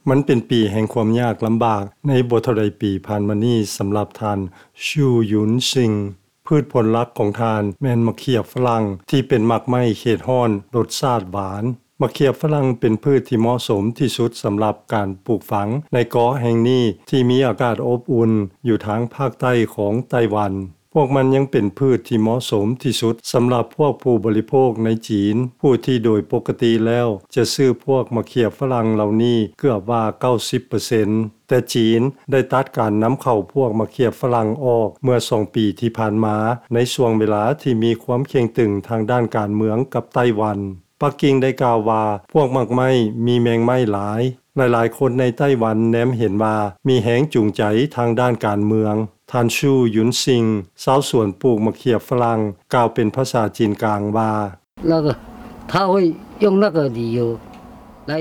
ມັນເປັນປີແຫ່ງຄວາມຍາກລຳບາກໃນບໍ່ເທົ່າໃດປີຜ່ານມານີ້ສຳລັບທ່ານ Xu Yunxing. ພືດຜົນຫຼັກຂອງທ່ານແມ່ນໝາກເຂືອຝຣັ່ງທີ່ເປັນໝາກໄມ້ເຂດຮ້ອນລົດຊາດຫວານ. ໝາກເຂືອຝຣັ່ງເປັນພືດທີ່ເໝາະສົມທີ່ສຸດສຳລັບການປູກຝັງໃນເກາະແຫ່ງນີ້ທີ່ມີອາກາດອົບອຸ່ນຢູ່ທາງພາກໃຕ້ຂອງໄຕ້ຫວັນ. ພວກມັນຍັງເປັນພືດທີ່ເໝາະສົມທີ່ສຸດສຳລັບພວກຜູ້ບໍລິໂພກໃນຈີນ, ຜູ້ທີ່ໂດຍປົກກະຕິແລ້ວຈະຊື້ພວກໝາກເຂືອຝຣັ່ງເຫຼົ່ານີ້ເກືອບວ່າເກົ້າສິບເປີເຊັນ. ແຕ່ຈີນໄດ້ຕັດການນຳເຂົ້າພວກໝາກເຂືອຝຣັ່ງອອກເມື່ອສອງປີທີ່ຜ່ານມາ, ໃນຊ່ວງເວລາທີ່ມີຄວາມເຄັ່ງຕຶງທາງດ້ານການເມືອງກັບໄຕ້ຫວັນ. ປັກກິ່ງໄດ້ກ່າວວ່າ ພວກໝາກໄມ້ມີແມງໄມ້ຫຼາຍ. ຫຼາຍໆຄົນໃນໄຕ້ຫວັນແນມເຫັນວ່າມີແຮງຈູງໃຈທາງດ້ານການເມືອງ. ທ່ານ Xu Yunxing ຊາວສວນປູກໝາກເຂືອຝຣັ່ງ ກ່າວເປັນພາສາຈີນກາງວ່າ 那个，他会用那个理由来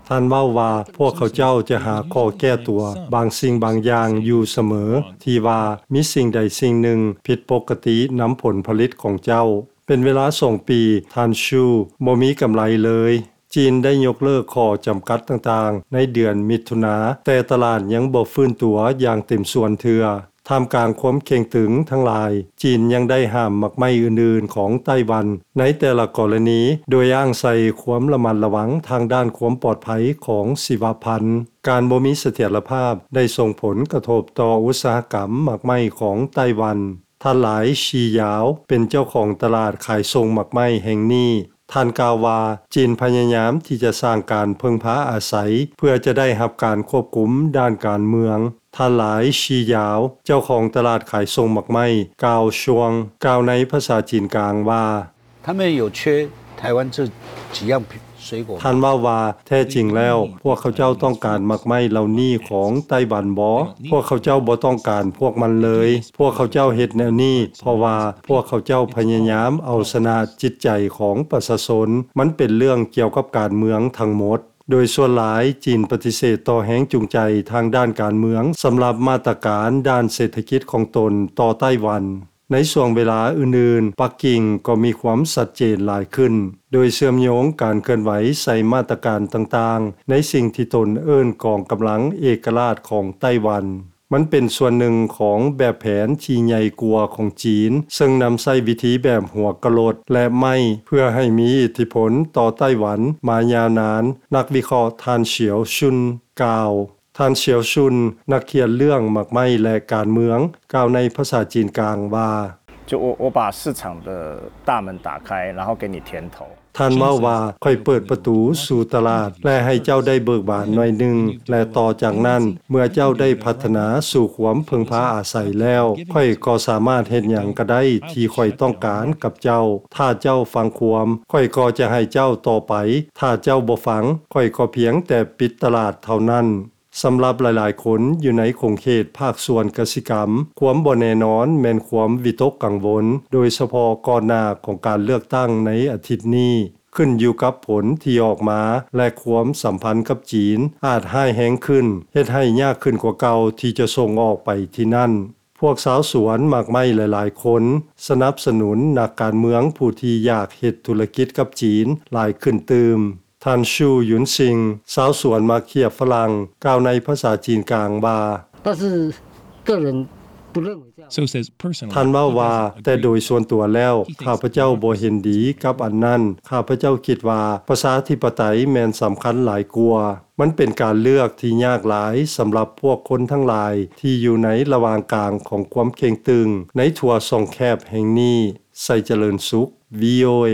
ທ່ານເວົ້າວ່າ ພວກເຂົາເຈົ້າຈະຫາຂໍ້ແກ້ຕົວບາງສິ່ງບາງຢ່າງຢູ່ສະເໝີ ທີ່ວ່າມີສິ່ງໃດສິ່ງໜຶ່ງຜິດປົກກະຕິນຳຜົນຜະລິດຂອງເຈົ້າ. ເປັນເວລາສອງປີ ທ່ານ Xu ບໍ່ມີກຳໄລເລີຍ. ຈີນໄດ້ຍົກເລີກຂໍ້ຈຳກັດຕ່າງໆໃນເດືອນມິຖຸນາ, ແຕ່ຕະຫຼາດຍັງບໍ່ຟື້ນຕົວຢ່າງເຕັມສ່ວນເທື່ອ. ທ່າມກາງຄວາມເຄັ່ງຕຶງທັງຫຼາຍ, ຈີນຍັງໄດ້ຫ້າມໝາກໄມ້ອື່ນໆຂອງໄຕ້ຫວັນໃນແຕ່ລະກໍລະນີ, ໂດຍອ້າງໃສ່ຄວາມລະມັດລະວັງທາງດ້ານຄວາມປອດໄພຂອງຊີວະພັນ. ການບໍ່ມີສະຖຽນລະພາບໄດ້ສົ່ງຜົນກະທົບຕໍ່ອຸດສາຫະກຳໝາກໄມ້ຂອງໄຕ້ຫວັນ. ທ່ານ ຫຼາຍ ຊີຢາວ ເປັນເຈົ້າຂອງຕະຫຼາດຂາຍສົ່ງໝາກໄມ້ແຫ່ງນີ້. ທ່ານກ່າວວ່າ ຈີນພະຍາຍາມທີ່ຈະສ້າງການເພິ່ງພາອາໄສ ເພື່ອຈະໄດ້ຮັບການຄວບຄຸມດ້ານການເມືອງ. ທ່ານ ຫຼາຍ ຊີຢາວ ເຈົ້າຂອງຕະຫຼາດຂາຍສົ່ງໝາກໄມ້ ກາວຊວງ ກ່າວໃນພາສາຈີນກາງວ່າ 他们有缺台湾这几样水果吗？ ທ່ານເວົ້າວ່າ ແທ້ຈິງແລ້ວ ພວກເຂົາເຈົ້າຕ້ອງການໝາກໄມ້ເຫຼົ່ານີ້ຂອງໄຕ້ຫວັນບໍ? ພວກເຂົາເຈົ້າບໍ່ຕ້ອງການພວກມັນເລີຍ. ພວກເຂົາເຈົ້າເຮັດແນວນີ້ ເພາະວ່າພວກເຂົາເຈົ້າພະຍາຍາມເອົາຊະນະຈິດໃຈຂອງປະຊາຊົນ. ມັນເປັນເລື່ອງກ່ຽວກັບການເມືອງທັງໝົດ. ໂດຍສ່ວນຫຼາຍ ຈີນປະຕິເສດຕໍ່ແຮງຈູງໃຈທາງດ້ານການເມືອງ ສຳລັບມາດຕະການດ້ານເສດຖະກິດຂອງຕົນຕໍ່ໄຕ້ຫວັນ. ໃນຊ່ວງເວລາອື່ນໆ, ປັກກິ່ງກໍມີຄວາມຊັດເຈນຫຼາຍຂຶ້ນ, ໂດຍເຊື່ອມໂຍງການເຄື່ອນໄຫວໃສ່ມາດຕະການຕ່າງໆ ໃນສິ່ງທີ່ຕົນເອີ້ນກອງກຳລັງເອກະລາດຂອງໄຕ້ຫວັນ. ມັນເປັນສ່ວນໜຶ່ງຂອງແບບແຜນທີ່ໃຫຍ່ກວ່າຂອງຈີນ, ເຊິ່ງນຳໃຊ້ວິທີແບບຫົວກະໂຫຼດ ແລະ ໄມ້ ເພື່ອໃຫ້ມີອິດທິພົນຕໍ່ໄຕ້ຫວັນມາຍາວນານ, ນັກວິເຄາະທ່ານ ສຽວຊຸນ ກ່າວ. ທ່ານ ສຽວຊຸນ ນັກຂຽນເລື່ອງໝາກໄມ້ ແລະ ການເມືອງ ກ່າວໃນພາສາຈີນກາງວ່າ 就我，我把市场的大门打开，然后给你甜头。 ທ່ານເວົ້າວ່າ ຂ້ອຍເປີດປະຕູສູ່ຕະຫຼາດ ແລະ ໃຫ້ເຈົ້າໄດ້ເບີກບານໜ້ອຍໜຶ່ງ ແລະ ຕໍ່ຈາກນັ້ນ ເມື່ອເຈົ້າໄດ້ພັດທະນາສູ່ຄວາມເພິ່ງພາອາໄສແລ້ວ ຂ້ອຍກໍສາມາດເຮັດຫຍັງກໍໄດ້ທີ່ຂ້ອຍຕ້ອງການກັບເຈົ້າ. ຖ້າເຈົ້າຟັງຄວາມ, ຂ້ອຍກໍຈະໃຫ້ເຈົ້າຕໍ່ໄປ. ຖ້າເຈົ້າບໍ່ຟັງ, ຂ້ອຍກໍພຽງແຕ່ປິດຕະຫຼາດເທົ່ານັ້ນ. ສຳລັບຫຼາຍໆຄົນຢູ່ໃນຂົງເຂດພາກສ່ວນກະສິກຳ, ຄວາມບໍ່ແນ່ນອນແມ່ນຄວາມວິຕົກກັງວົນ, ໂດຍສະເພາະກ່ອນໜ້າຂອງການເລືອກຕັ້ງໃນອາທິດນີ້, ຂຶ້ນຢູ່ກັບຜົນທີ່ອອກມາ ແລະ ຄວາມສຳພັນກັບຈີນອາດຮ້າຍແຮງຂຶ້ນ, ເຮັດໃຫ້ຍາກຂຶ້ນກວ່າເກົ່າທີ່ຈະສົ່ງອອກໄປທີ່ນັ້ນ. ພວກຊາວສວນໝາກໄມ້ຫຼາຍໆຄົນສະໜັບສະໜູນນັກການເມືອງຜູ້ທີ່ຢາກເຮັດທຸລະກິດກັບຈີນຫຼາຍຂຶ້ນຕື່ມ. ທ່ານ ຊູ ຢຸນຊິງ ຊາວສວນໝາກເຂືອຝຣັ່ງ ກ່າວໃນພາສາຈີນກາງວ່າ 但是个人不认为这样。 So says personally, ທ່ານເວົ້າວ່າ ແຕ່ໂດຍສ່ວນຕົວແລ້ວ ຂ້າພະເຈົ້າບໍ່ເຫັນດີກັບອັນນັ້ນ. ຂ້າພະເຈົ້າຄິດວ່າປະຊາທິປະໄຕແມ່ນສຳຄັນຫຼາຍກວ່າ. ມັນເປັນການເລືອກທີ່ຍາກຫຼາຍສຳລັບພວກຄົນທັງຫຼາຍທີ່ຢູ່ໃນລະຫວ່າງກາງຂອງຄວາມເຄັ່ງຕຶງໃນທົ່ວຊ່ອງແຄບແຫ່ງນີ້. ໄຊຈະເລີນສຸກ ວີໂອເອ.